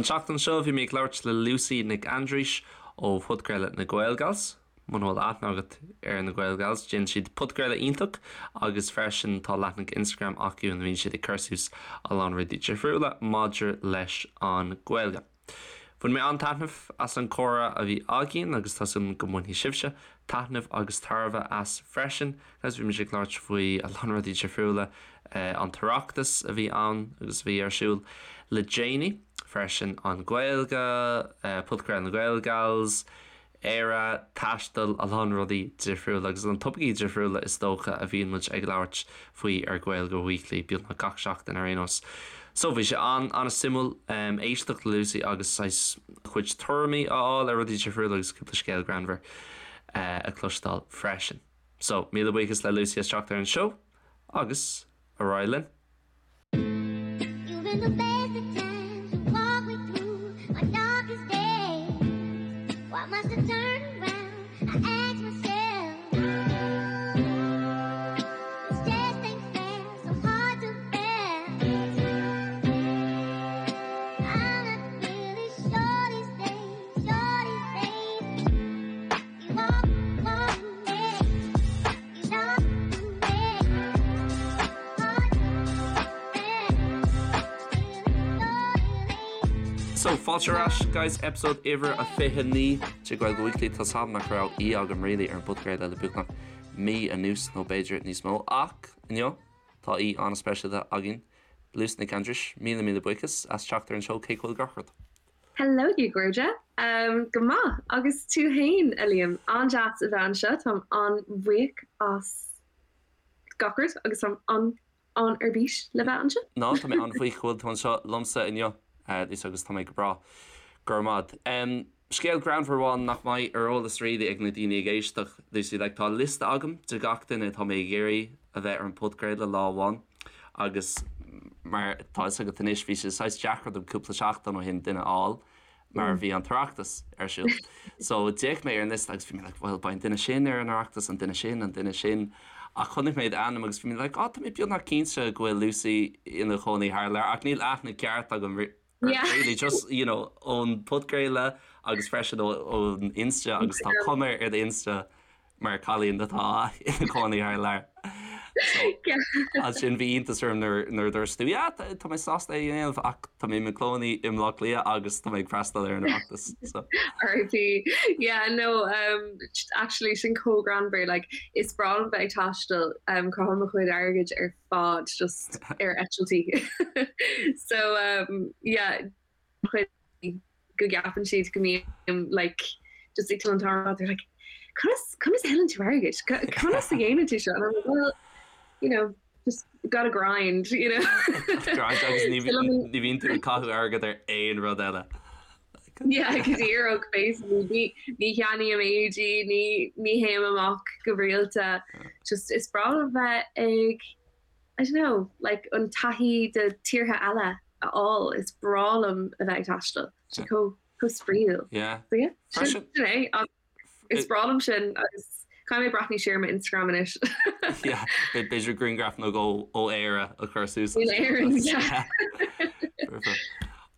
An tseachtain seo bhí mé ag labhairt le Lucy Nic Aindrís ó phodchraoladh na Gaelgals. Muna bhfuil aithne agat ar na Gaelgals, déanann siad podchraoladh iontach agus freisin tá leathanach Instagram acu ina mbíonn siad ag cur suas a lán rudaí difriúla maidir leis an Ghaeilge. Bhain mé an-taitneamh as an comhrá a bhí againn agus tá súil agam go mbainfidh sibhse taitneamh agus tairbhe as freisin. Guys, bhí muid ag labhairt faoi a lán rudaí difriúla, an tOireachtas a bhí ann agus a bhí ar siúl le déanaí, freisin an Ghaeilge, podchraoladh na Gaelgals, Éire, taisteal, a lán rudaí difriúla agus na topaicí difriúla is dócha a bhíonn muid ag labhairt faoi ar Gaeilge Weekly beagnach gach seachtain ar aon nós. So bhí sé an-an-suimiúil éisteacht le Lucy agus saghas a cuid tuairimí a fháil ar rudaí difriúla agus cúpla scéal greannmhar a chloisteáil freisin. So míle buíochas le Lucy as teacht ar an seó agus ar aghaidh linn. So, fáilte ar ais guys, episode uimhir a 29 de Gaeilge Weekly. Tá 's agam nach raibh aoi agam really ar an bpodchraoladh le beagnach mí anuas nó b'fhéidir níos mó ach inniu tá aoi an-speisialta againn, Lucy Nic Aindris, míle míle buíochas as teacht ar an seó cén chaoi a bhfuil gach rud. Hello a chairde. Go maith, agus tú fhéin, a Liam? An-deas a bheith anseo, táim an-bhuíoch as gach rud agus táim an-an ar bís le bheith anseo. Ná, tá mé an-bhuíoch go bhfuil tú anseo liomsa inniu, Lucy, agus tá mé go breá. Go raibh maith agat. Scéal greannmhar amháin nach mbeidh ar eolas really ag na daoine ag éisteacht, Lucy, like tá liosta agam de gach duine atá mé ag iarraidh a bheith ar an bpodchraoladh lá amháin agus mar tá fhios agat anois bhí sé saghas deacair dom cúpla seachtain ó shin duine a fháil mar bhí an tOireachtas ar siúl. So d'fhéach mé ar an liosta agus bhí mé like bhuel beidh an duine sin ar an Oireachtas, an duine sin, an duine sin ach chonaic mé d'ainm agus bhí mé like oh tá mé beagnach cinnte go bhfuil Lucy ina chónaí thar lear ach níl aithne ceart agam Yeah. Really just you know ón podchraoladh agus freisin ón Insta agus tá cuma ar do Insta mar cailín atá ina cónaí thar lear. So, ansin bhí iontas orm nuair nuair a dúirt tú yeah tá tá mé sásta é a dhéanamh ach tá mé i mo chónaí i mBleá Cliath agus tá mé ag freastal ar an Oireachtas. So. RIP. Yeah, no, um, actually sin chomh greannmhar, like, is breá liom bheith ag taisteal, um, caithim mo chuid airgid ar fad just ar eitiltí. So um, yeah, chuid go gceapann siad go mbím like just ag an t-am they're like conas conas a thuilleann tú airgead? Conas a dhéanann tú seo? And I'm like, well, you know, just gotta grind, you know. Grind agus ní ní bhíonn tú ag caitheamh airgead ar aon rud eile. Yeah, go díreach basically ní ní cheannaím éadaí, ní ní théim amach go rialta. Just is breá liom bheith ag I don't know, like an taithí de tíortha eile a fháil, is breá liom a bheith ag taisteal. Sé chomh chomh spraíúil. Yeah. So yeah, sin Freisin sin é. Ach is breá liom sin agus caithfidh mé breathnú siar ar mo Instagram anois. Yeah, b'fhéidir grianghraf nó dhó ó Éire a chur suas In Éirinn, yeah. Perfect.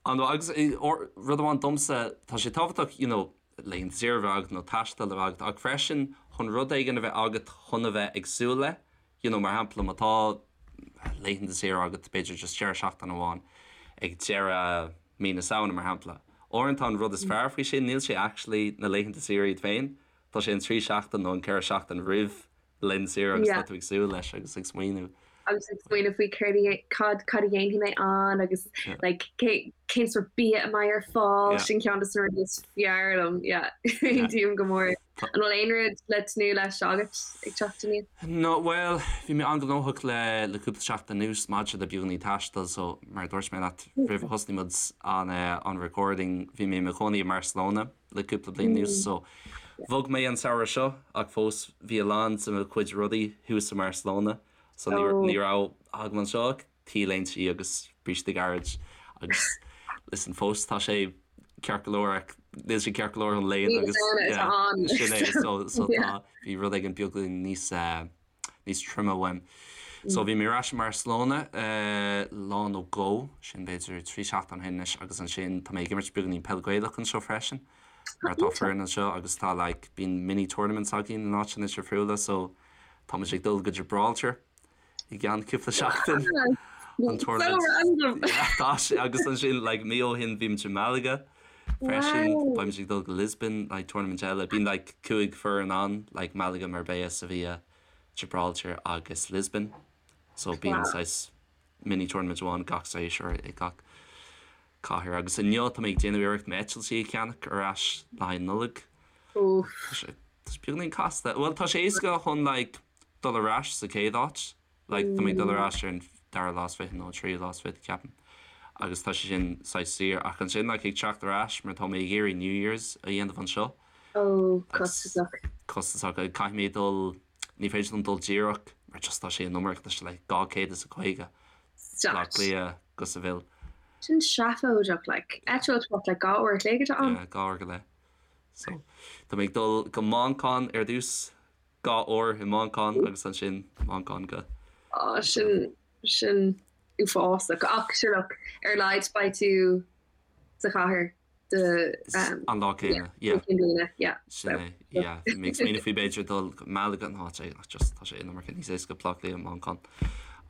An agus rud amháin domsa, tá sé tábhachtach, you know, laethanta saoire a bheith agat nó taisteal a bheith agat ach freisin chun rud éigin a bheith agat chun a bheith ag súil le, you know, mar shampla má tá laethanta saoire agat b'fhéidir just deireadh seachtaine amháin ag deireadh mí na Samhna mar shampla. Uaireanta an rud is fearr faoi sin níl sé actually na laethanta saoire iad féin, tá sé an 3 seachtain nó an 4 seachtain roimh laethanta saoire agus tá tú ag súil leis agus ag smaoineamh. agus ag smaoineamh faoi céard a cad cad a dhéanfaidh mé ann agus like cé cén sórt bia a mbeidh ar fáil sin ceann de na rudaí is fearr liom yeah aontaím go mór. An bhfuil aon rud le tnúth leis agat ag teacht aníos? No, bhuel, bhí mé an-ghnóthach le le cúpla seachtain anuas maidir le beagáinín taistil so mar a dúirt mé leat roimh a thosnaigh muid an an recording bhí mé i mo chónaí i mBarcelona le cúpla bliain anuas so bhog mé an samhradh seo ach fós bhí a lán de mo chuid rudaí thuas i mBarcelona so ní ní raibh agam anseo ach T-léintí agus brístí gairid agus listen fós tá sé ceart go leor ach níl sé ceart go leor an léan agus sin é so so tá bhí rud éigin beagáinín níos eh, níos troime uaim. So bhí mé ar ais i mBarcelona lá nó dhó, sin b'fhéidir 3 seachtain ó shin anois agus ansin tá mé ag imirt beagáinín peil Gaelach anseo freisin mar tá foireann anseo agus tá like bíonn mini tournaments againn in áiteanna difriúla so tá muid ag dul go Gibraltar i gceann cúpla seachtain an tournament. Yeah, tá sé agus ansin like mí ó shin bhí muid i Malaga freisin beidh muid ag dul go Lisbon like tournament eile bíonn like 5 foireann ann like Malaga, Marbella, Sevilla Gibraltar agus Lisbon so bíonn saghas mini tournament amháin gach séasúr i gach cathair agus inniu tá mé ag déanamh iarracht m'eitiltí a cheannach ar ais le haghaidh Nollag. Tá sé tá sé beagáinín casta. Bhuel tá sé éasca chun like dul ar ais sa chéad áit like tá mé ag dul ar ais ar an dara lá is fiche nó an tríú lá is fiche ceapaim agus tá sé sin saghas saor ach ansin like ag teacht ar ais mar tá mé ag iarraidh New Year's a dhéanamh anseo Ó, costasach. Costasach. Caithfidh mé dul, ní féidir liom dul díreach mar just tá sé an iomarca, tá sé like 250 Stop. Baile Átha Cliath go Seville. Sin seafóideach, like. Eitilt what, like 2 uair a chloig atá ann? Yeah, 2 uair go leith. So, tá mé ag dul go Manchain ar dtús, 2 uair i Manchain agus ansin Manchain go. Ó, sin, sin uafásach. Ach, sure look, ar a laghad beidh tú sa chathair. An lá céanna, yeah. Yeah. Sin é, yeah. Bhí mé ag smaoineamh faoi b'fhéidir dul go Malaga an áit é, ach just tá sé an iomarca níos éasca Baile Átha Cliath, Manchain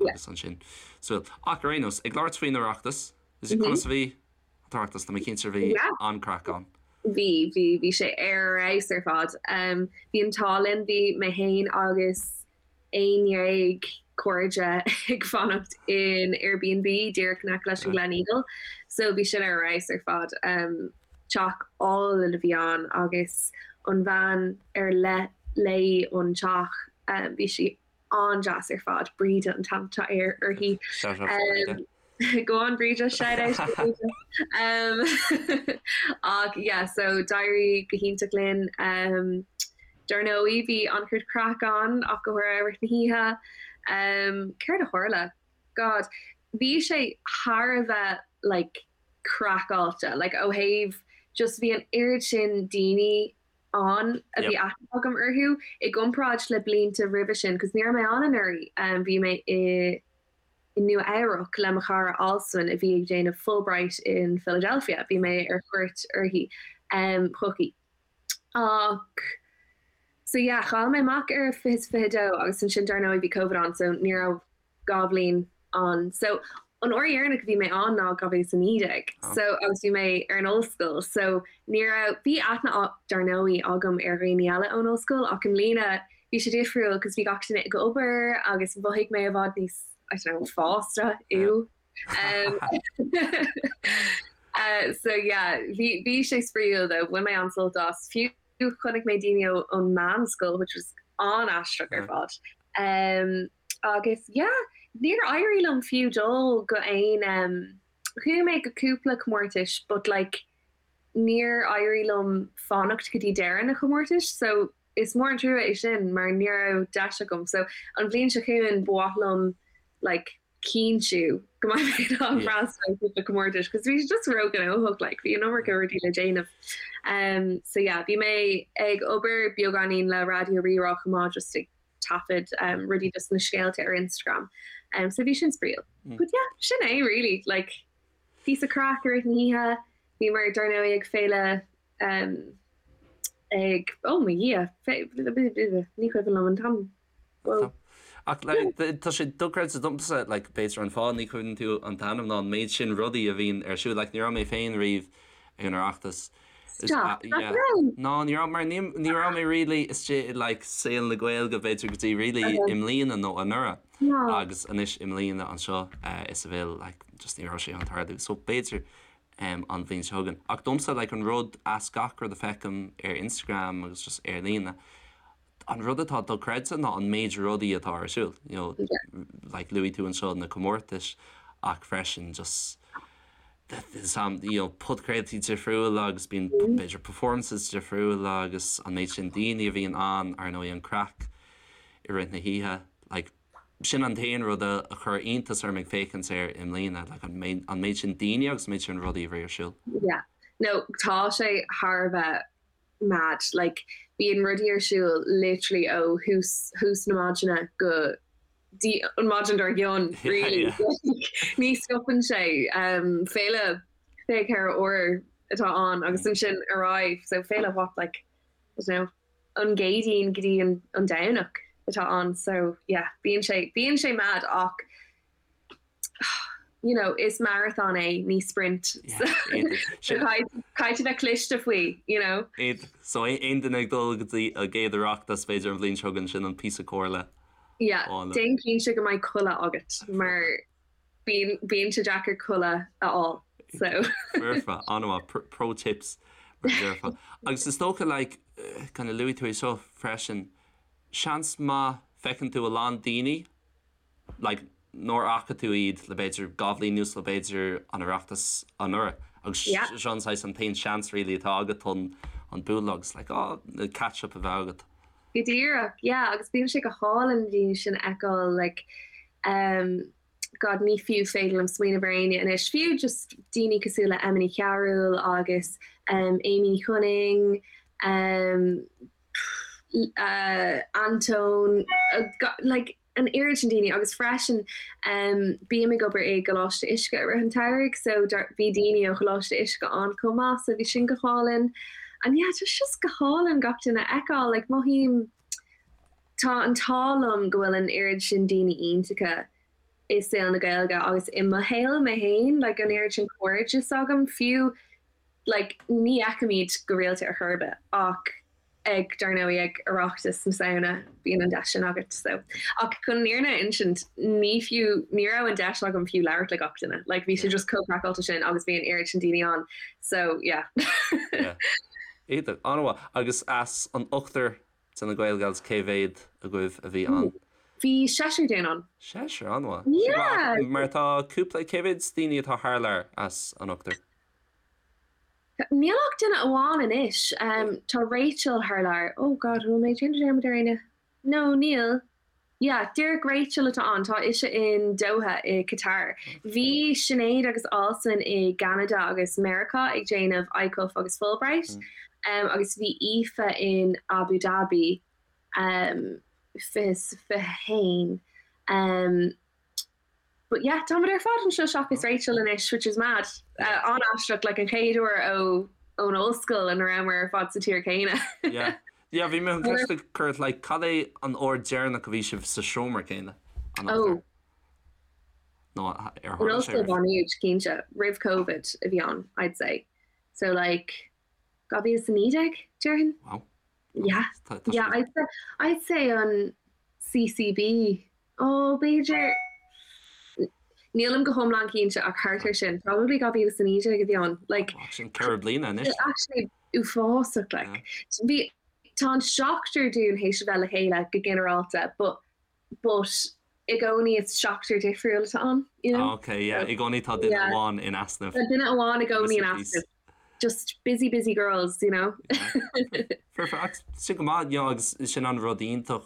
agus ansin. So, ach ar aon nós, ag labhairt faoin Oireachtas, is é conas a bhí an tOireachtas, tá mé cinnte bhí an-craic ann. Bhí, bhí, bhí sé ar fheabhas ar fad. Bhí an t-ádh linn, bhí mé féin agus 11 cairde ag fanacht in Airbnb díreach in aice leis an Gleneagle so bhí sin ar fheabhas ar fad. Teach álainn a bhí ann agus an bhean ar leith léi an teach bhí sí an-deas ar fad, Bríde an t-ainm atá uirthi. Shout out to Bríde. Go on Bríde, shout out to Bríde. Ach yeah, so d'éirigh go hiontach linn. Um, dar ndóigh bhí an-chuid craic ann ach go háirithe i rith na hoíche. Um, céard a tharla? God, bhí sé thar a bheith like craiceáilte, like ó thaobh just bhí an oiread sin daoine ann a bhí aithne agam orthu i gcomparáid le blianta roimhe sin, cos ní raibh mé ann anuraidh, um, bhí mé i i Nua Eabhrac le mo chara Alswyn a bhí ag déanamh Fulbright in Philadelphia. Bhí mé ar cuairt uirthi chuici. Ach so yeah, chaill mé amach ar 2022 agus ansin dar ndóigh bhí Covid ann so ní raibh 2 bhliain ann. So an uair dheireanach a bhí mé ann ná 2019 so agus bhí mé ar an ollscoil so ní raibh, bhí aithne dar ndóigh agam ar dhaoine eile ón ollscoil ach i mbliana bhí sé difriúil cos bhí gach duine ag obair agus mhothaigh mé i bhfad níos, I don't know, fásta, ew. Um, uh, so yeah, bhí, bhí sé spraíúil though, bhain mé an-sult as. Fiú chonaic mé daoine ó, ón meánscoil, which was an-aisteach ar fad. Um, agus yeah, níor éirigh liom fiú dul go aon, um, chuaigh mé go cúpla comórtais but like níor éirigh liom fanacht go dtí deireadh na comórtais so Is mór an trua é sin mar ní raibh deis agam so an bhliain seo chugainn ba mhaith liom like cinntiú go mbeidh mé in ann freastal ar cúpla comórtais cos bhí sé just róghnóthach like bhí an iomarca rudaí le déanamh. Um so yeah bhí mé ag obair beagáinín le Raidió Rí-Rá chomh maith just ag taifead um rudaí just na scéalta ar Instagram um so bhí sin spraíúil. But yeah sin é really like píosa craic i rith na hoíche bhíomar dar ndóigh ag féile um ag, oh mo Dhia, ní cuimhin liom an t-ainm. Whoa. Ach like, tá sé dochreidte domsa, like, b'fhéidir an fáth ní chuimhníonn tú an t-ainm ná an méid sin rudaí a bhíonn ar siúl. Like, ní raibh mé féin riamh ag an Oireachtas. Stop, nach raibh? Ná, ní raibh, mar ní, ní raibh mé really istigh i like saol na Gaeilge b'fhéidir go dtí really i mbliana nó anuraidh. Agus anois i mbliana anseo i Seville, like, just ní raibh sé chun tarlú. So b'fhéidir an bhliain seo chugainn. Ach domsa, like, an rud as gach rud a feicim ar Instagram agus just ar líne, an rud atá dochreidte ná an méid rudaí atá ar siúl. You know, like, luaigh tú anseo na comórtais ach freisin just some, you know, podchraoltaí difriúla agus bíonn b'fhéidir performances difriúla agus an méid sin daoine a bhíonn ann, ar ndóigh an craic i rith na hoíche, like, Sin an t-aon rud a chuir iontas orm ag féachaint air i mbliana, like an méid, an méid sin daoine agus an méid sin rudaí a bhí ar siúl. Yeah. No, tá sé thar a bheith mad. Like, bíonn rudaí ar siúl literally ó thús, thús na maidine go dtí an maidin dár gcionn, really. Ní stopann sé. Féile 24 uair atá ann agus ansin ar aghaidh, so féile what like, I don't know, an gCéadaoin go dtí an Domhnach atá ann, so yeah, bíonn sé, bíonn sé mad ach you know, is marathon é, ní sprint. So caithfidh tú bheith cliste faoi, you know. So aon duine ag dul go dtí a gcéad Oireachtas b'fhéidir an bhliain seo chugainn sin an píosa comhairle. Yeah, déan cinnte go mbeidh codladh agat mar bíonn bíonn sé deacair codladh a fháil. So. Foirfe, an-mhaith, pro tips mar a déarfá. Agus is dócha like, kind of luaigh tú é seo freisin, seans maith feiceann tú a lán daoine like nár fhaca tú iad le b'fhéidir 2 bhliain anuas nó b'fhéidir an Oireachtas anuraidh agus seo an saghas an t-aon seans really atá agat chun an bualadh agus like oh catch up a bheith agat. Go díreach, yeah, agus bíonn sé go hálainn na daoine sin a fheiceáil like um God ní fiú féidir liom smaoineamh ar éinne anois, fiú just daoine cosúil le Emma Ní Chearúil agus um Amy Ní Chonaing um uh Antóin uh, like an oiread sin daoine agus freisin bím ag obair i gColáiste Uisce i rith an tsamhraidh so bhí daoine ó Choláiste Uisce ann chomh maith so bhí sin go hálainn and yeah tá just go hálainn gach duine a fheiceáil like mothaím tá an t-ádh liom go bhfuil an oiread sin daoine iontacha i saol na Gaeilge agus i mo shaol mé féin like an oiread sin cairdeas agam fiú like ní fheicimid go rialta ar chor ar bith ach ag, dar ndóigh, ag Oireachtas na Samhna, bíonn an deis sin agat, so. Ach chun an fhírinne a insint, ní fiú, ní raibh an deis agam fiú labhairt le gach duine, like bhí sé just chomh craiceáilte sin agus bhí an oiread sin daoine ann, so yeah. Yeah. Iontach, an-mhaith. Agus as an ochtar de na Gaelgals, cé mhéad agaibh a bhí ann? Bhí seisear dínn ann. Seisear, an-mhaith. Yeah! Mar tá cúpla, cé mhéad daoine atá thar lear as an ochtar? Níl ach duine amháin anois. Tá Rachel thar lear. Oh God, bhfuil mé ag déanamh dearmad ar éinne? No, níl. Yeah, díreach Rachel atá ann. Tá ise in Doha i Qatar. Bhí Sinéad agus Alswyn i gCeanada agus Meiriceá ag déanamh ICUF agus Fulbright. Agus bhí Aoife in Abu Dhabi 2021. But yeah, táimid ar fad anseo seachas Rachel anois, which is mad. An-aisteach, like an chéad uair ó ón ollscoil ina rabhamar ar fad sa tír céanna. Yeah. Yeah, bhí mé chun ceist a chur ort, like, cad é an uair deireanach a bhí sibh sa seomra céanna? An Oh. Nó ar In tharla sé Ollscoil Mhá Nuad, cinnte, roimh Covid a bhí ann, I'd say. So like, 2019, déarfainn? Wow. Yeah. Yeah, I'd say, I'd say an CCB Ó, b'fhéidir. Nílim go hiomlán cinnte ach thart ar sin. Probably 2019 a bhí ann. Like, Sin 4 bliana anois. Actually uafásach, like. Bhí, tá an seachtar dúinn théis a bheith le chéile go ginearálta, but, but i gcónaí is seachtar difriúil atá ann, you know? Ok, yeah, i gcónaí tá duine amháin in easnamh. Tá duine amháin i gcónaí in easnamh. Just busy, busy girls, you know? Perfect. Sin go maith, you know, agus sin an rud iontach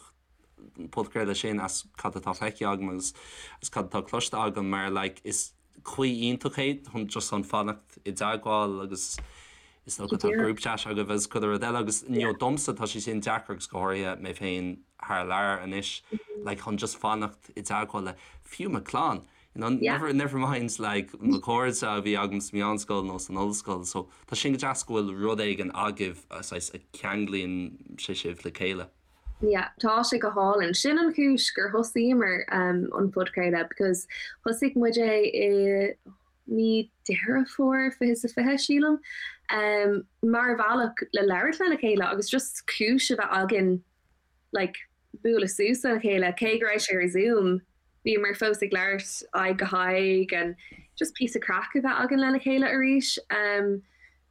podchraoladh sin as cad atá feicthe agam agus as cad atá cloiste agam mar like is caoi iontach é chun just chun fanacht i dteagmháil agus is dócha tá group chat agaibh agus chuile rud eile agus you know domsa tá sé sin deacair agus go háirithe mé féin thar lear anois like chun just fanacht i dteagmháil le fiú mo chlann you know never never mind like mo chairde a bhí agam sa mheánscoil nó san ollscoil so tá sin go deas go bhfuil rud éigin agaibh saghas a cheanglaíonn sé sibh le chéile. Yeah, tá sé go hálainn. Sin an chúis gur thosaíomar an podchraoladh because thosaigh muid é i mí Deireadh Fómhair 2020, sílim, mar bhealach le labhairt lena chéile agus just cúis a bheith againn like bualadh suas lena chéile, cé go raibh sé ar Zoom. Bhíomar fós ag labhairt aghaidh go haghaidh and just píosa craic a bheith againn lena chéile arís.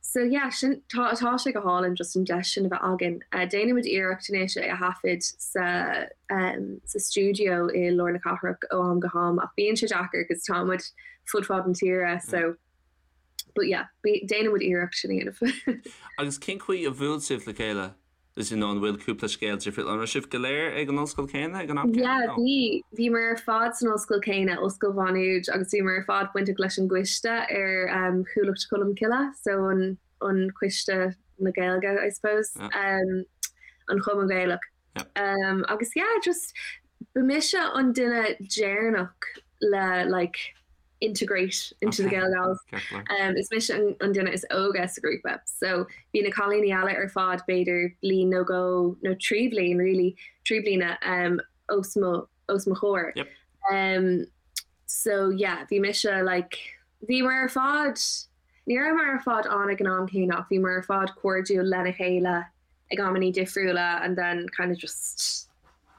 So yeah, sin, tá, tá sé go hálainn just an deis sin a bheith againn. Déanaimid iarracht anois é a thaifead sa, sa stiúideo i lár na cathrach ó am go ham ach bíonn sé deacair cos tá muid fud fad na tíre so, but yeah, déanaimid iarracht sin a dhéanamh. Agus cén chaoi a bhuail sibh le chéile? Is you know an bhfuil cúpla scéal difriúil? An raibh sibh go léir ag an ollscoil céanna ag an am céanna? Yeah, bhí. Bhíomar ar fad san ollscoil céanna, Ollscoil Mhá Nuad, agus bhíomar ar fad bainteach leis an gcoiste ar um, Chuallacht Cholmcille, so an, an coiste na Gaeilge, I suppose, yeah. um, an Chumann Gaelach. Yeah. Um, agus yeah, just Ba mise an duine deireanach le like integrate into the Gaelgals. Um, is mise an, an duine is óige sa grúpa. So bhí na cailíní eile ar fad b'fhéidir bliain nó dhó nó 3 bhliain really, 3 bliana um, os mo, os mo chomhair. Yep. Um, so yeah, bhí mise like, bhíomar ar fad, ní rabhamar ar fad ann ag an am céanna ach bhíomar ar fad cairdiúil lena chéile ag amannaí difriúla and then kind of just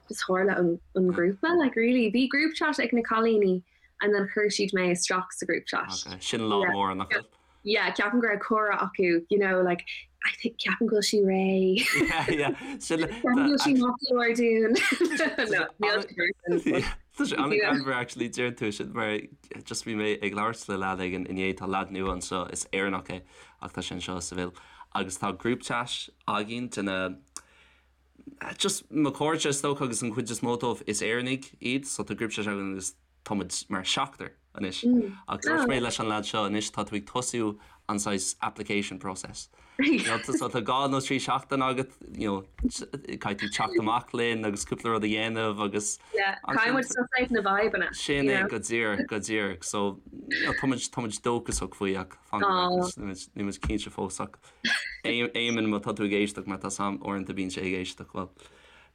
just tharla an, an grúpa like really bhí group chat ag na cailíní and then chuir siad mé isteach sa group chat. Okay, sin lá Yeah. mór nach bhfuil? Yeah, ceapaim go raibh comhrá acu, you know, like I think ceapaim go bhfuil sí réidh. Yeah, yeah. Sin Ceapaim go bhfuil sí maith go leor dúinn. No, níl sí mar sin, but Yeah. Tá sé you know. an-ghreannmhar actually deir tú sin mar just bhí mé ag labhairt le leaid éigin inné tá leaid nua anseo is Éireannach é ach tá sé anseo i Seville agus tá group chat againn de na just mo chairde is dócha agus an chuid is mó dóibh is Éireannaigh iad so tá group chat againn agus tá muid mar seachtar anois. Ach dúirt mé leis an leaid seo anois tá tú ag tosú an saghas application process. You know, so tá dhá nó trí seachtain agat, you know, caithfidh tú teacht amach linn agus cúpla rud a dhéanamh agus Yeah, caithfidh muid suss out na vibeanna. Sin é go díreach, go díreach. So, you know, tá muid, tá muid dóchasach faoi ach fan go bhfeicfidh, níl muid cinnte fós ach Éamonn má tá tú ag éisteacht mar tá a fhios agam uaireanta bíonn sé ag éisteacht, bhuel,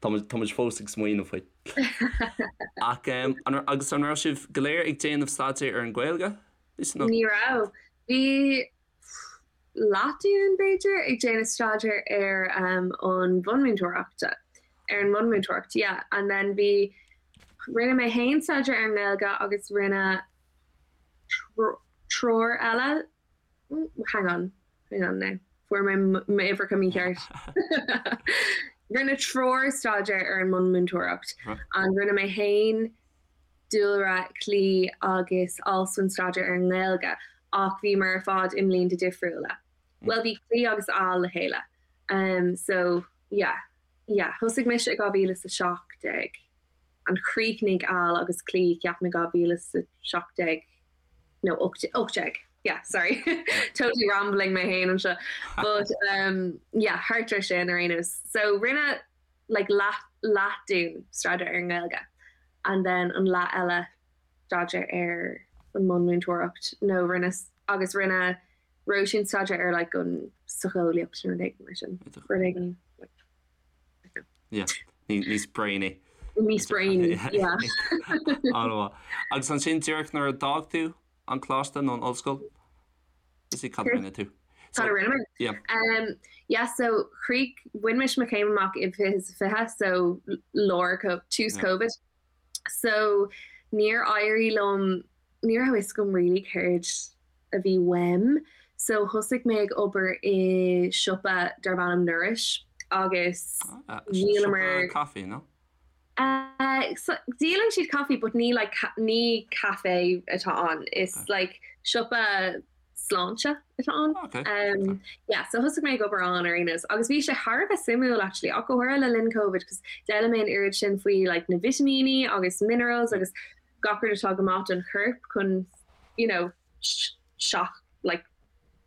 tá muid, tá muid fós ag smaoineamh faoi. Ach an, agus an raibh sibh go léir ag déanamh staidéar ar an Ghaeilge? Ní raibh. Bhí leath dínn, b'fhéidir, ag déanamh staidéar ar an bhunmhúinteoireacht, ar an mbunmhúinteoireacht, yeah. And then bhí, rinne mé féin staidéar ar an nGaeilge agus rinne triúr eile Hang on, hang on now. Fuair mé m'uimhreacha mícheart. Rinne triúr staidéar ar an mbunmhúinteoireacht and rinne mé féin, Dúlra, Clí agus Alswyn staidéar ar an nGaeilge ach bhíomar ar fad i mblianta difriúla. Bhuel bhí Clí agus Al le chéile. Um, so yeah, yeah, thosaigh mise i 2017 and chríochnaigh Al agus Clí ceapaim i 2017. nó 18 yeah sorry totally rambling mé féin anseo but um yeah thart ar sin ar aon nós so rinne like leath leath dínn staidéar ar an nGaeilge and then an leath eile staidéar ar an mbunmhúinteoireacht nó rinne agus rinne Róisín staidéar ar like an socheolaíocht nó rud éigin mar sin rud éigin like Yeah, níos brainy. Níos brainy, yeah. An-mhaith. Agus ansin díreach nuair a d'fhág tú an coláiste nó an ollscoil, is í cad a rinne tú? Cad a rinne mé? Yeah. Um, yeah, so chríoch, bhain mise mo chéim amach i 2020, so lár, tús Covid. So níor éirigh liom, ní raibh fhios agam really céard a bhí uaim. So thosaigh mé ag obair i siopa darb ainm Nourish agus dhíolamar. Siopa caife, nó? So díolann siad caife but ní like ní caife atá ann. Is like siopa sláinte atá ann. Okay. Um, yeah, so thosaigh mé ag obair ann ar aon nós. Agus bhí sé thar a bheith suimiúil actually, ach go háirithe le linn Covid, cos d'fhoghlaim mé an oiread sin faoi like na vitimíní agus minerals agus gach rud atá go maith don chorp chun you know, seach like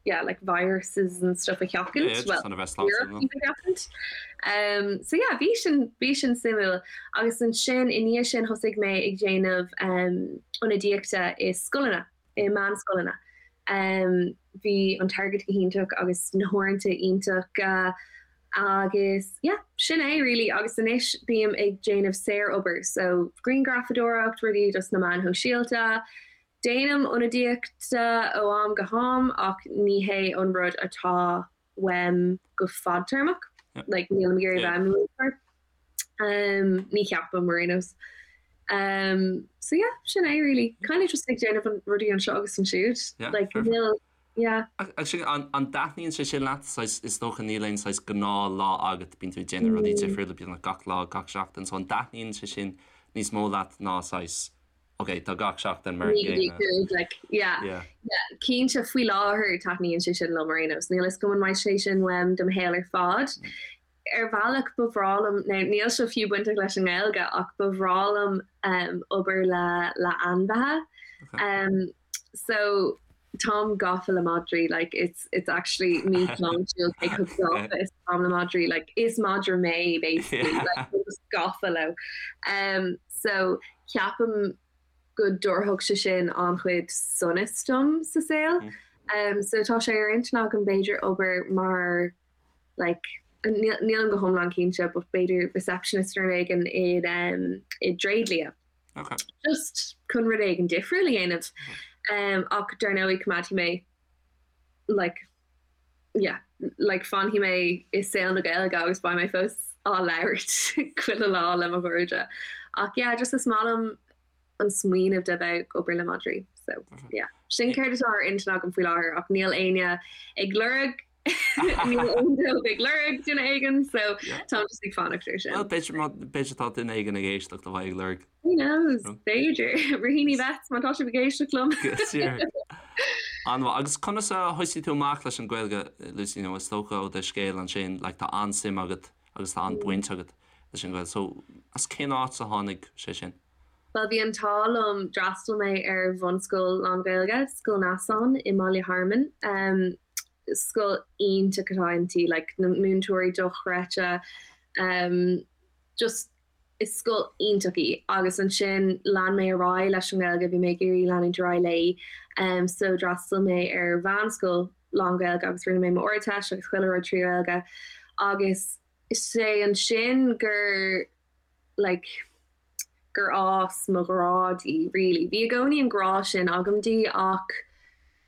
yeah, like viruses and stuff a sheachaint. Yeah, well, a bheith sláintiúil. sheachaint. Um, so yeah, bhí sin bhí sin suimiúil agus ansin i ndiaidh sin thosaigh mé ag déanamh um, ionadaíochta i scoileanna. i meánscoileanna. Bhí an t-airgead go hiontach agus na huaireanta iontach agus yeah, sin é really agus anois bím ag déanamh saorobair so grianghrafadóireacht, rudaí dos na meáin shóisialta. Déanaim ionadaíocht ó am go ham ach ní hé an rud atá uaim go fadtéarmach. Like nílim ag iarraidh bheith i mo mhúinteoir. Um, ní cheapaim ar aon nós. Um, so yeah, sin é really. Kind of just ag déanamh an rudaí anseo agus ansiúd. Yeah, Like fair. níl, yeah. Ach sin, an, an dtaitníonn sé sin leat? Saghas, is dócha níl aon saghas gnáth lá agat, bíonn tú ag déanamh rudaí difriúla beagnach gach lá, gach seachtain, so an dtaitníonn sé sin níos mó leat ná saghas, ok, tá gach seachtain mar an gcéanna. Like, yeah. Yeah. Yeah, cinnte faoi láthair taitníonn sé sin liom ar aon nós. Níl a fhios agam an mbeidh sé sin uaim do mo shaol ar fad. Ar bhealach ba bhreá liom, now níl seo fiú bainteach leis an nGaeilge ach ba bhreá liom um, obair le le ainmhithe. Okay. Um, so. Táim gafa le madraí like it's it's actually míshláintiúil cé chomh gafa is atáim le madraí like is madra mé basically like just gafa leo. Um, so ceapaim go dtabharfadh sé sin an-chuid sonas dom sa saol. Mm. Um, so tá sé ar intinn agam b'fhéidir obair mar like nílim go hiomlán cinnte but b'fhéidir receptionist nó rud éigin i um, i dtréidlia. Okay. Just chun rud éigin difriúil a dhéanamh. Um, ach dar ndóigh coimeádfaidh mé like yeah, like fanfaidh mé i saol na Gaeilge agus beidh mé fós á labhairt chuile lá le mo chairde. Ach yeah, just is maith liom an smaoineamh de bheith ag obair le madraí. So yeah, sin céard atá ar intinn agam faoi láthair ach níl éinne ag lorg Níl aon job ag lorg duine éigin so táim just ag fanacht ar sin. Well b'fhéidir tá duine éigin ag éisteacht a bheidh ag lorg. Who knows? B'fhéidir. Raheny Vets má tá sibh ag éisteacht liom. An-mhaith. Agus conas a thosaigh tú amach leis an Ghaeilge, Lucy, nó is dócha ó do scéal ansin, like tá an-suim agat agus tá an-bhaint agat leis an Ghaeilge. So as cén áit a tháinig sé sin? Bhuel bhí an t-ádh liom, d'fhreastail mé ar bhunscoil lán-Ghaeilge, Scoil Neasáin i mBaile Hearmann. Scoil iontach atá inti, like na múinteoirí dochreidte, just is scoil iontach í. Agus ansin lean mé ar aghaidh leis an nGaeilge, bhí mé ag iarraidh leanúint ar aghaidh léi, so d'fhreastail mé ar mheánscoil lán-Ghaeilge agus rinne mé m'Ardteist agus chuile rud trí Ghaeilge agus is é ansin gur like gur fhás mo ghrá di really. Bhí i gcónaí an grá sin agam di ach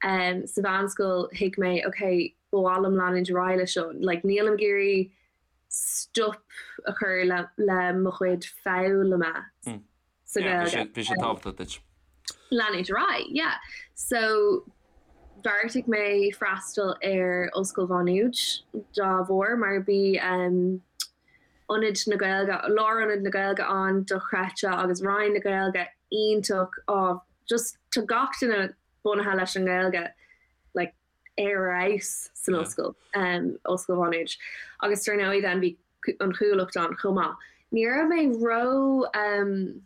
um, sa mheánscoil thuig mé ok, ba mhaith liom leanúint ar aghaidh leis seo, like nílim ag iarraidh stop a chur le, le mo chuid foghlama mm. sa Ghaeilge. Bhí sé tábhachtach duit. Leanúint ar aghaidh, yeah. So bheartaigh mé freastal ar Ollscoil Mhá Nuad dá bharr mar bhí um, Ionad na Gaeilge, Lárionad na Gaeilge ann dochreidte agus Roinn na Gaeilge iontach, oh just tá gach duine bunaithe leis an nGaeilge like ar fheabhas san ollscoil, um, Ollscoil Mhá Nuad. Agus dar ndóigh then bhí an Chuallacht ann chomh maith. Ní raibh mé ró um,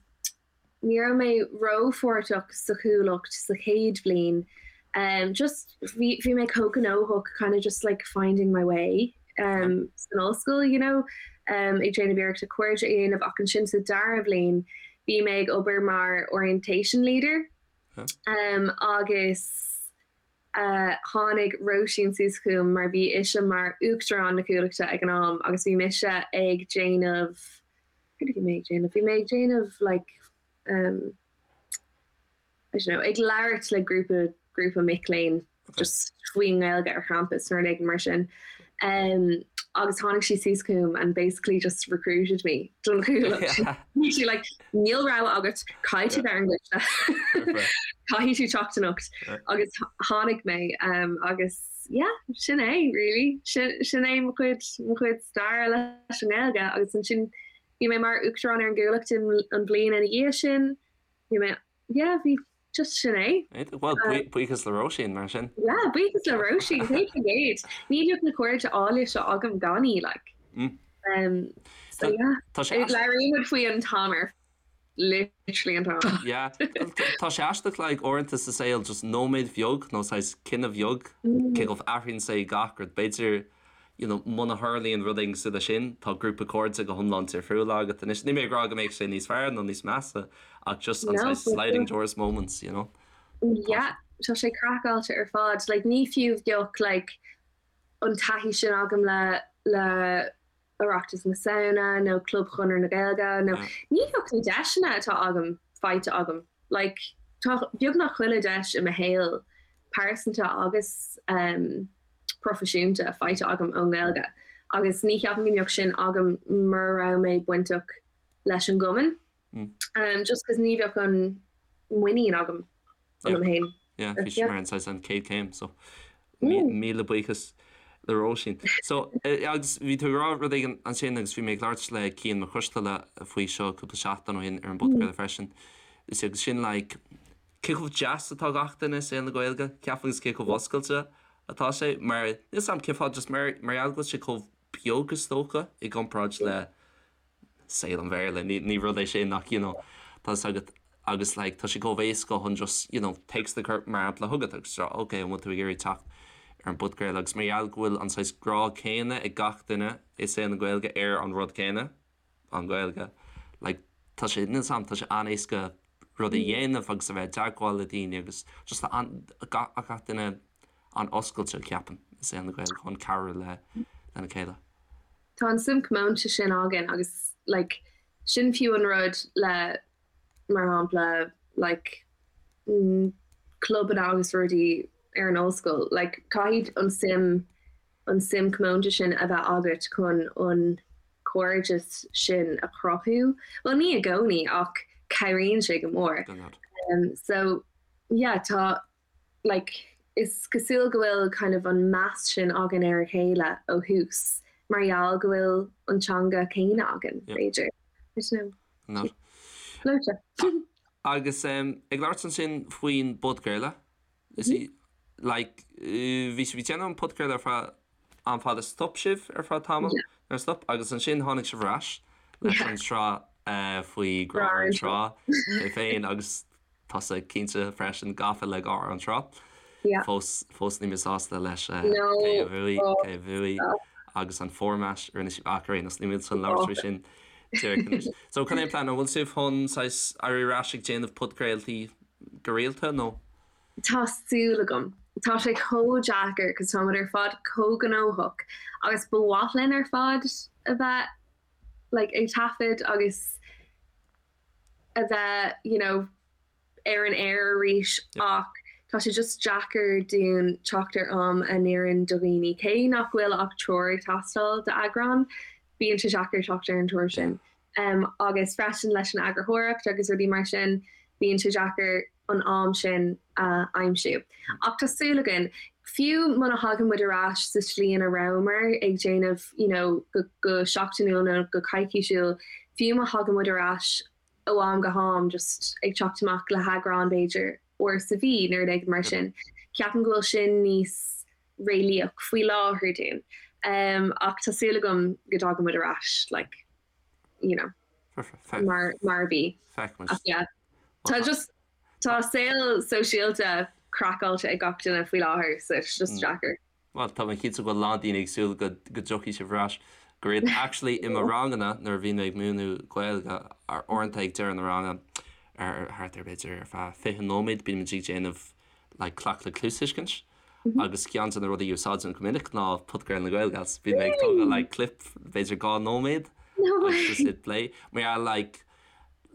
Ní raibh mé rópháirteach sa Chuallacht sa chéad bhliain. Um, just bhí bhí mé chomh gnóthach kind of just like finding my way um, san ollscoil, you know, um, ag déanamh iarrachta cairde a dhéanamh ach ansin sa dara bhliain bhí mé ag obair mar orientation leader um, agus uh, tháinig Róisín suas chugam mar bhí ise mar uachtarán na Cuallachta ag an am agus bhí mise ag déanamh Céard a bhí mé ag déanamh? Bhí mé ag déanamh like um, I don't know, ag labhairt le grúpa grúpa mic léinn just faoin nGaeilge ar champas nó rud éigin mar sin. Um, agus tháinig sí suas chugam and basically just recruited me don Chuallacht. Bhí sí like níl rogha agat caithfidh tú bheith ar an gcoiste. Caithfidh tú teacht anocht. Agus tháinig mé um, agus yeah, sin é really. Sin, sin é mo chuid, mo chuid staire leis an nGaeilge agus ansin bhí mé mar uachtarán ar an gCuallacht an bhliain ina dhiaidh sin. Bhí mé, yeah, bhí just sin é. Well, buíochas le Róisín mar sin. Yeah, buíochas le Róisín, 100%. Ní bheadh na cairde áille seo agam gan í, like. Mm. Um, so yeah. Tá sé Labhraíonn muid faoi an t-am ar literally an t-am. Yeah. Tá sé aisteach like uaireanta sa saol just nóiméad bheag nó saghas cinneadh bheag cé chomh athraíonn sé gach rud. B'fhéidir you know muna tharlaíonn rud éigin cosúil leis sin tá grúpa cairde go hiomlán difriúil agat anois. Níl mé ag rá go mbeadh sé níos fearr nó níos measa ach just an saghas sliding doors moments, you know. Yeah, tá sé craiceáilte ar fad. Like ní fiú bheadh like an taithí sin agam le le Oireachtas na Samhna nó Club Chonradh na Gaeilge nó ní bheadh na deiseanna atá agam faighte agam. Like tá beagnach chuile deis i mo shaol pearsanta agus um, proifisiúnta faighte agam ón nGaeilge agus ní cheapaim go mbeadh sin agam mura raibh mé bainteach leis an gcumann. Mm. Um, just cos ní bheadh an muinín agam ionam féin. Yeah, bhí sé mar an saghas an chéad chéim, so míle buíochas le Róisín. So, agus bhí tú ag rá rud éigin ansin agus bhí mé ag labhairt le Cian Mac Coisteala faoi seo cúpla seachtain ó shin ar an bpodchraoladh freisin. Is agus sin like, cé chomh deas atá gach duine i saol na Gaeilge, ceapaim agus cé chomh oscailte atá sé, mar níl 'fhios a'm cén fáth just mar mar gheall go bhfuil sé chomh beag is dócha i gcomparáid le saol an Bhéarla. Ní rud é sin ach you know, tá 'fhios agat. agus like tá sé chomh éasca chun just you know téacs a chur mar shampla chugat agus rá ok an bhfuil tú ag iarraidh teacht ar an bpodchraoladh agus mar gheall go bhfuil an saghas grá céanna ag gach duine i saol na Gaeilge ar an rud céanna, an Ghaeilge, like tá sé, níl 's a'm, tá sé an-éasca rud a dhéanamh agus a bheith i dteagmháil le daoine agus just tá an, gach, gach duine an-oscailte ceapaim i saol na Gaeilge chun cabhrú le, lena chéile. Tá an suim comónta sin againn agus like sin fiú an rud le mar shampla like clubanna agus rudaí ar an ollscoil like caithfidh an suim an suim comónta sin a bheith agat chun an cairdeas sin a chruthú. Bhuel ní i gcónaí ach cabhraíonn sé go mór. So yeah tá like is cosúil go bhfuil kind of an meas sin againn ar a chéile ó thús mar gheall go bhfuil an teanga céanna againn, b'fhéidir. I don't know. Gleoite. Agus ag labhairt ansin faoin bpodchraoladh, is í like bhí sibh ag déanamh an podchraoladh ar feadh am fada, stop sibh ar feadh tamaill, nuair a stop, agus ansin tháinig sibh ar ais leis an tsraith faoi Grá ar an Trá, mé féin agus tusa cinnte freisin gafa le Grá ar an Trá. Fós, fós níl mé sásta leis cé a bhuaigh, cé a bhuaigh agus an format a rinne sibh ach ar aon nós, níl mé chun labhairt faoi sin díreach anois. So cad é an plean? An bhfuil sibh chun saghas éirí ar ais ag déanamh podchraoltaí go rialta nó? Tá súil agam. Tá sé chomh deacair cos táimid ar fad chomh gnóthach agus ba mhaith linn ar fad a bheith like ag taifead agus a bheith you know ar an aer arís ach tá sé just deacair dúinn teacht ar am a n-oireann do dhaoine. Cé nach bhfuil ach triúr ag teastáil d'eagrán, bíonn sé deacair teacht ar an triúr sin. Um, agus freisin leis an eagarthóireacht agus rudaí mar sin, bíonn sé deacair an am sin a aimsiú. Ach tá súil againn, fiú muna thagann muid ar ais sa tslí ina rabhamar ag déanamh you know, go, go seachtainiúil nó go coicísiúil, fiú má thagann muid ar ais ó am go ham just ag teacht amach le heagrán b'fhéidir uair sa mhí nó rud éigin mar sin, ceapaim go bhfuil sin níos réalaíoch faoi láthair dúinn. Um, ach tá súil agam go dtagann muid ar ais like, you know, mar, mar a bhí. Ach yeah, tá just tá saol sóisialta craiceáilte ag gach duine faoi láthair so it's just deacair. Bhuel, tá mé cinnte go bhfuil a lán daoine ag súil go dtiocfaidh sibh ar ais go rialta. Actually, i mo ranganna, nuair a bhíonn mé ag múineadh Gaeilge, uaireanta ag deireadh na ranga, ar thart ar b'fhéidir ar feadh 20 nóiméad, bímid ag déanamh like cleachtadh cluastuiscint agus ceann de na rudaí a úsáidim go minic ná podchraoladh na GaelGals. Bíonn mé ag tógáil like clip b'fhéidir 2 nóiméad agus just hit play. Mar gheall like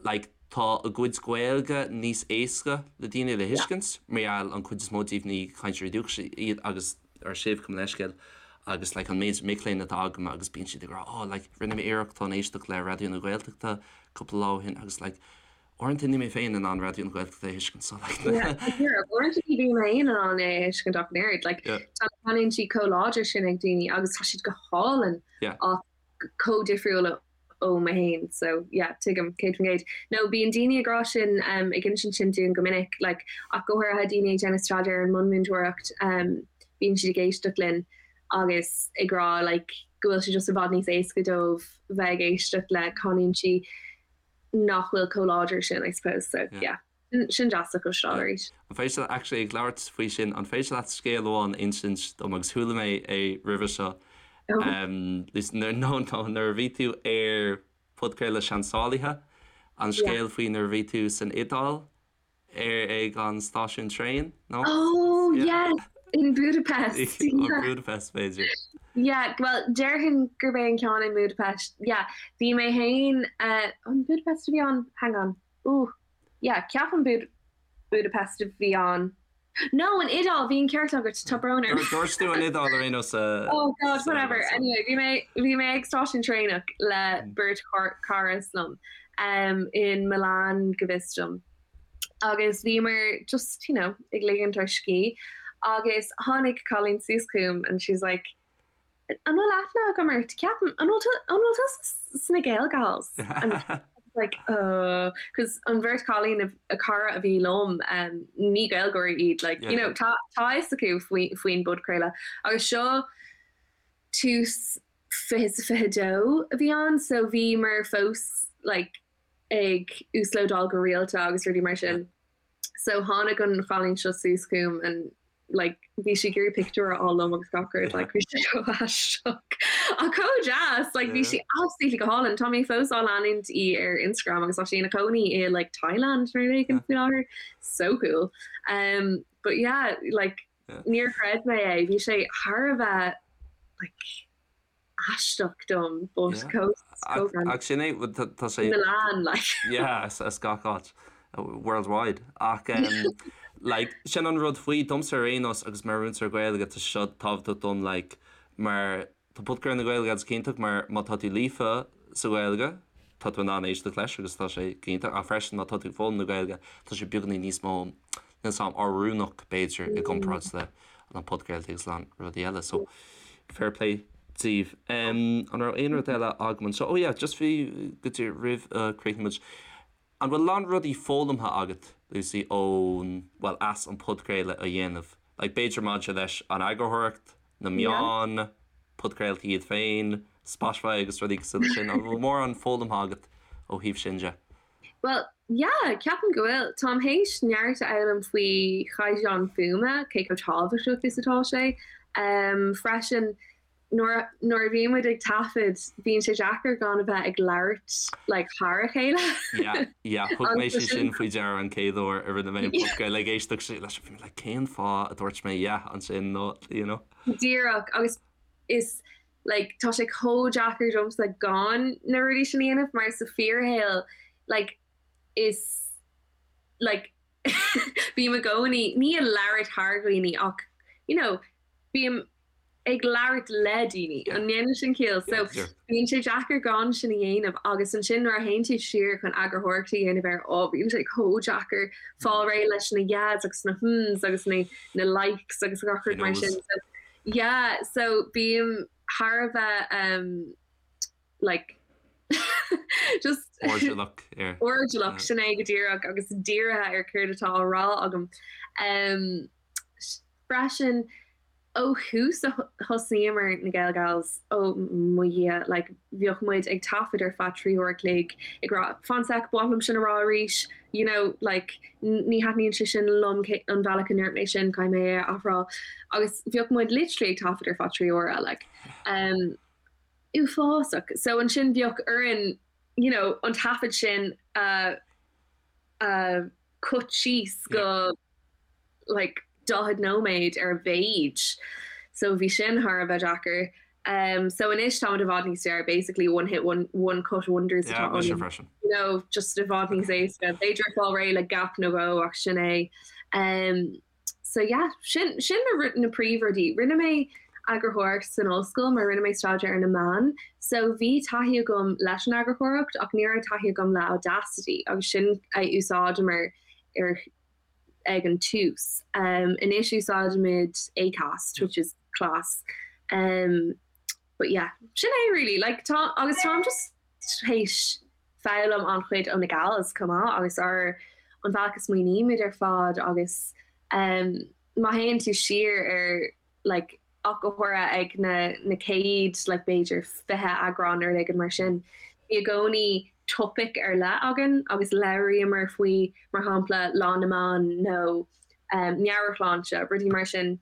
like tá a gcuid Gaeilge níos éasca le daoine le thuiscint mar gheall an chuid is mó díobh ní cainteoirí dúchais iad agus ar sibh gabh mo leithscéal agus like an méid mic léinn atá agam agus bíonn siad ag rá oh like rinne mé iarracht chun éisteacht le Raidió na Gaeltachta cúpla lá ó shin agus like uaireanta níl mé féin in ann Raidió na Gaeltachta a thuiscint so like uaireanta ní bhím féin in ann é a thuiscint ach an oiread like tá na canúintí chomh láidir sin ag daoine agus tá siad go hálainn ach chomh difriúil ó mo fhéin so yeah tuigim 100%. No bíonn daoine ag rá sin um, ag insint sin dúinn go minic like, ach go háirithe daoine ag déanamh staidéar ar an mbunmhúinteoireacht um, bíonn siad ag éisteacht linn agus ag rá like, go bhfuil sé just i bhfad níos éasca dóibh bheith ag éisteacht le canúintí nach bhfuil chomh láidir sin I suppose so yeah. yeah. Sin deas a chloisteáil arís. An féidir leat, actually ag labhairt faoi sin, an féidir leat scéal amháin a insint dom agus chuala mé é roimhe seo nó nó nuair a bhí tú ar podchraoladh Seansálaithe, an scéal faoi nuair a bhí tú san Iodáil ar ag an stáisiún traein, nó? Oh yes! In Budapest. Yeah. Budapest b'fhéidir. Yeah, well déarfainn gurb é an ceann in Budapest. Yeah, bhí mé féin, an Budapest a bhí ann? Hang on. Ooh. Yeah, ceapaim Bud Budapest a bhí ann. No, an Iodáil, bhí an ceart agat, tá brón orm. Dúirt tú an Iodáil ar aon nós sa. Oh God, whatever. Anyway, bhí mé bhí mé ag stáisiún traenach le beirt charas liom um, in Milan go bhfios dom. Agus bhíomar just, you know, ag ligint ár scíth agus tháinig cailín suas chugam and she's like, An bhfuil aithne agam ort? Ceapaim, an bhfuil tú, an bhfuil tusa sna Gael Gals? And like, uh, cos an bheirt chailín a, a cara a bhí liom, um, ní Gaeilgeoirí iad, like, you know, tá, tá fhios acu faoi, faoin bpodchraoladh. Agus seo tús 2022 a bhí ann, so bhíomar fós, like, ag uaslódáil go rialta agus rudaí mar sin. So tháinig an chailín seo suas chugam and like bhí sí ag iarraidh pictiúr a fháil liom agus gach rud like bhí sé chomh aisteach ach chomh deas like bhí sí absolutely go hálainn. Tá mé fós á leanúint í ar Instagram agus tá sí ina cónaí i like Thailand nó rud éigin faoi láthair. So cool. Um, but yeah, like níor chreid mé é, bhí sé thar a bheith like aisteach dom but chomh chomh Ach sin é tá sé Milan like. Yeah as gach áit worldwide ach like sin an rud faoi domsa ar aon nós agus mar mhúinteoir Gaeilge tá seo tábhachtach dom like mar tá podchraoladh na GaelGals iontach mar má tá tú líofa sa Ghaeilge tá tú in ann éisteacht leis agus tá sé iontach ach freisin má tá tú ag foghlaim na Gaeilge tá sé beagáinín níos mó níl 's a'm oiriúnach b'fhéidir i gcomparáid le na podchraoltaí agus a lán rudaí eile so fair play daoibh. An raibh aon rud eile agam anseo? Oh yeah, just bhí go dtí roimh a chríochnú muid. An bhfuil a lán rudaí foghlamtha agat, Lucy, ón, bhuel, as an podchraoladh a dhéanamh? Like b'fhéidir maidir leis an eagarthóireacht, na meáin, podchraoltaí iad féin, Spotify agus rudaí cosúil leis sin. An bhfuil mórán foghlamtha agat ó thaobh sin de? Bhuel, yeah, ceapaim go bhfuil. Táim théis neart a fhoghlaim faoi chaighdeán fuaime, cé chomh tábhachtach is atá sé. Freisin, nuair nuair a bhíonn muid ag taifead, bíonn sé deacair gan a bheith ag labhairt like thar a chéile. Yeah, yeah, thug mé sé sin faoi deara an chéad uair a rinne mé an podchraoladh ag éisteacht leis, bhí mé like cén fáth a dúirt mé yeah ansin nó, you know. Díreach, agus is like tá sé chomh deacair domsa gan na rudaí sin a dhéanamh mar sa fíorshaol like is like bím i gcónaí ní ag labhairt thar dhaoine ach you know bím ag labhairt le daoine an ndéanann sin ciall so bíonn sé deacair gan sin a dhéanamh agus ansin nuair a théann tú siar chun eagarthóireacht a dhéanamh air ó bíonn sé chomh deacair fáil réidh leis na yeahs agus na hmms agus na na likes agus gach rud mar sin so Yeah so bím thar a bheith um like just Airdeallach ar. Airdeallach sin é go díreach agus dírithe ar céard atá á rá agam. Um freisin ó thús a thosnaíomar na GaelGals ó mo Dhia like bheadh muid ag taifead ar feadh 3 uair a chloig ag rá fan sec ba mhaith liom sin a rá arís you know like ní thaitníonn sé sin liom an bealach a ndúirt mé sin caithfidh mé é a athrá agus bheadh muid literally ag taifead ar feadh 3 uaire like um uafásach so ansin bheadh orainn you know an taifead sin a a cut síos go like 40 nóiméad ar a mhéid so bhí sin thar a bheith deacair. Um, so anois táimid i bhfad níos fearr, basically one hit one, one cut wonders atá yeah, ionainn. You know, just i bhfad níos éasca. B'fhéidir fáil réidh le gap nó dhó ach sin é. Um, so yeah, sin, sin na, na príomhrudaí. Rinne mé eagarthóireacht san ollscoil mar rinne mé staidéar ar na meáin, so bhí taithí agam leis an eagarthóireacht ach ní raibh taithí agam le Audacity agus sin a úsáideamar ar ag an tús. Anois úsáidimid Acast, which is class. But yeah, sin é really. Like tá, agus táim just théis foghlaim an-chuid ó na gals chomh maith agus ár an bhealach a smaoinímid ar fad agus má théann tú siar ar like ach go háirithe ag na na céad like b'fhéidir 20 eagrán nó rud éigin mar sin. Bhí i gcónaí topaic ar leith againn agus labhraíomar faoi mar shampla Lá na mBan nó um meabhairshláinte, rudaí mar sin.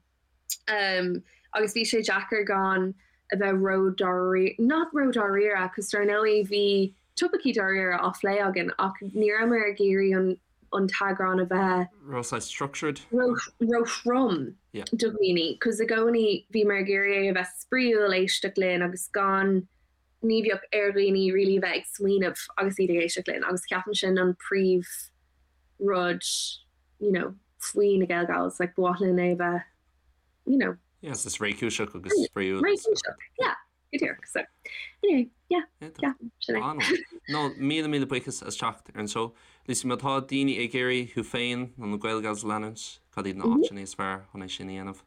Um agus bhí sé deacair gan a bheith ró-dáiríre, not ró-dáiríre, cos dar ndóigh bhí topaicí dáiríre á phlé againn ach ní rabhamar ag iarraidh an an t-eagrán a bheith. Ró structured. Ró-throm do dhaoine, cos i gcónaí bhíomar ag iarraidh é a bheith spraíúil, éisteacht linn agus gan, ní bheadh ar dhaoine really a bheith ag smaoineamh agus iad ag éisteacht linn agus ceapaim sin an príomh rud you know faoi na GaelGals, like ba mhaith linn é a bheith you know. Yes, is réchúiseach agus spraíúil. Réchúiseach, yeah. Go díreach. So, anyway, yeah, yeah, sin é. An-mhaith. No, míle míle buíochas as teacht ar an seó. Lucy, má tá daoine ag iarraidh thú féin nó na GaelGals a leanúint, cad iad na áiteanna is fearr chun é sin a dhéanamh?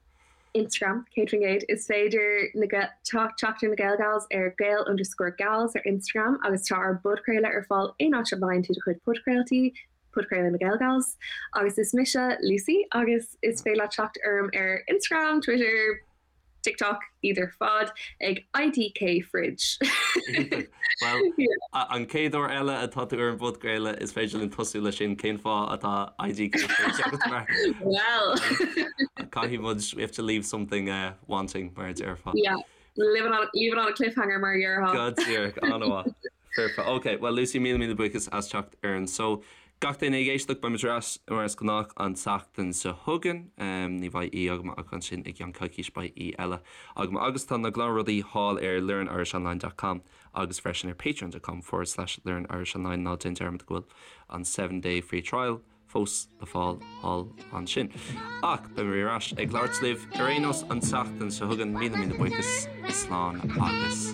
Instagram, 100%. Is féidir na teacht ar na GaelGals ar gael underscore gals ar Instagram agus tá ár bpodchraoladh ar fáil aon áit a bhfaigheann tú do chuid podchraoltaí, Podchraoladh na GaelGals. Agus is mise Lucy agus is féidir leat teacht orm ar Instagram, Twitter, TikTok, iad ar fad ag IDK Fridge. Bhuel, an chéad uair eile atá tú ar an bpodchraoladh is féidir linn tosú leis sin, cén fáth atá IDK Fridge agat mar Well! Caithfidh muid, we have to leave something uh, wanting mar a déarfá. Yeah, leave it on, leave it on a cliffhanger mar a déarfá. Go díreach, an-mhaith. Foirfe. Ok, bhuel Lucy, míle míle buíochas as teacht ar an seó. Gach duine ag éisteacht, beidh muid ar ais mar is gnách an tseachtain seo chugainn. Ní bheidh aoi agam ach ansin i gceann coicís beidh aoi eile agam. Agus tá na gnáthrudaí thall ar learnirishonline dot com agus freisin ar patreon dot com forward slash learnirishonline. Ná déan dearmad go bhfuil an seven day free trial fós le fáil thall ansin. Ach beidh mé ar ais ag labhairt libh ar aon nós an tseachtain seo chugainn. Míle míle buíochas, slán agus.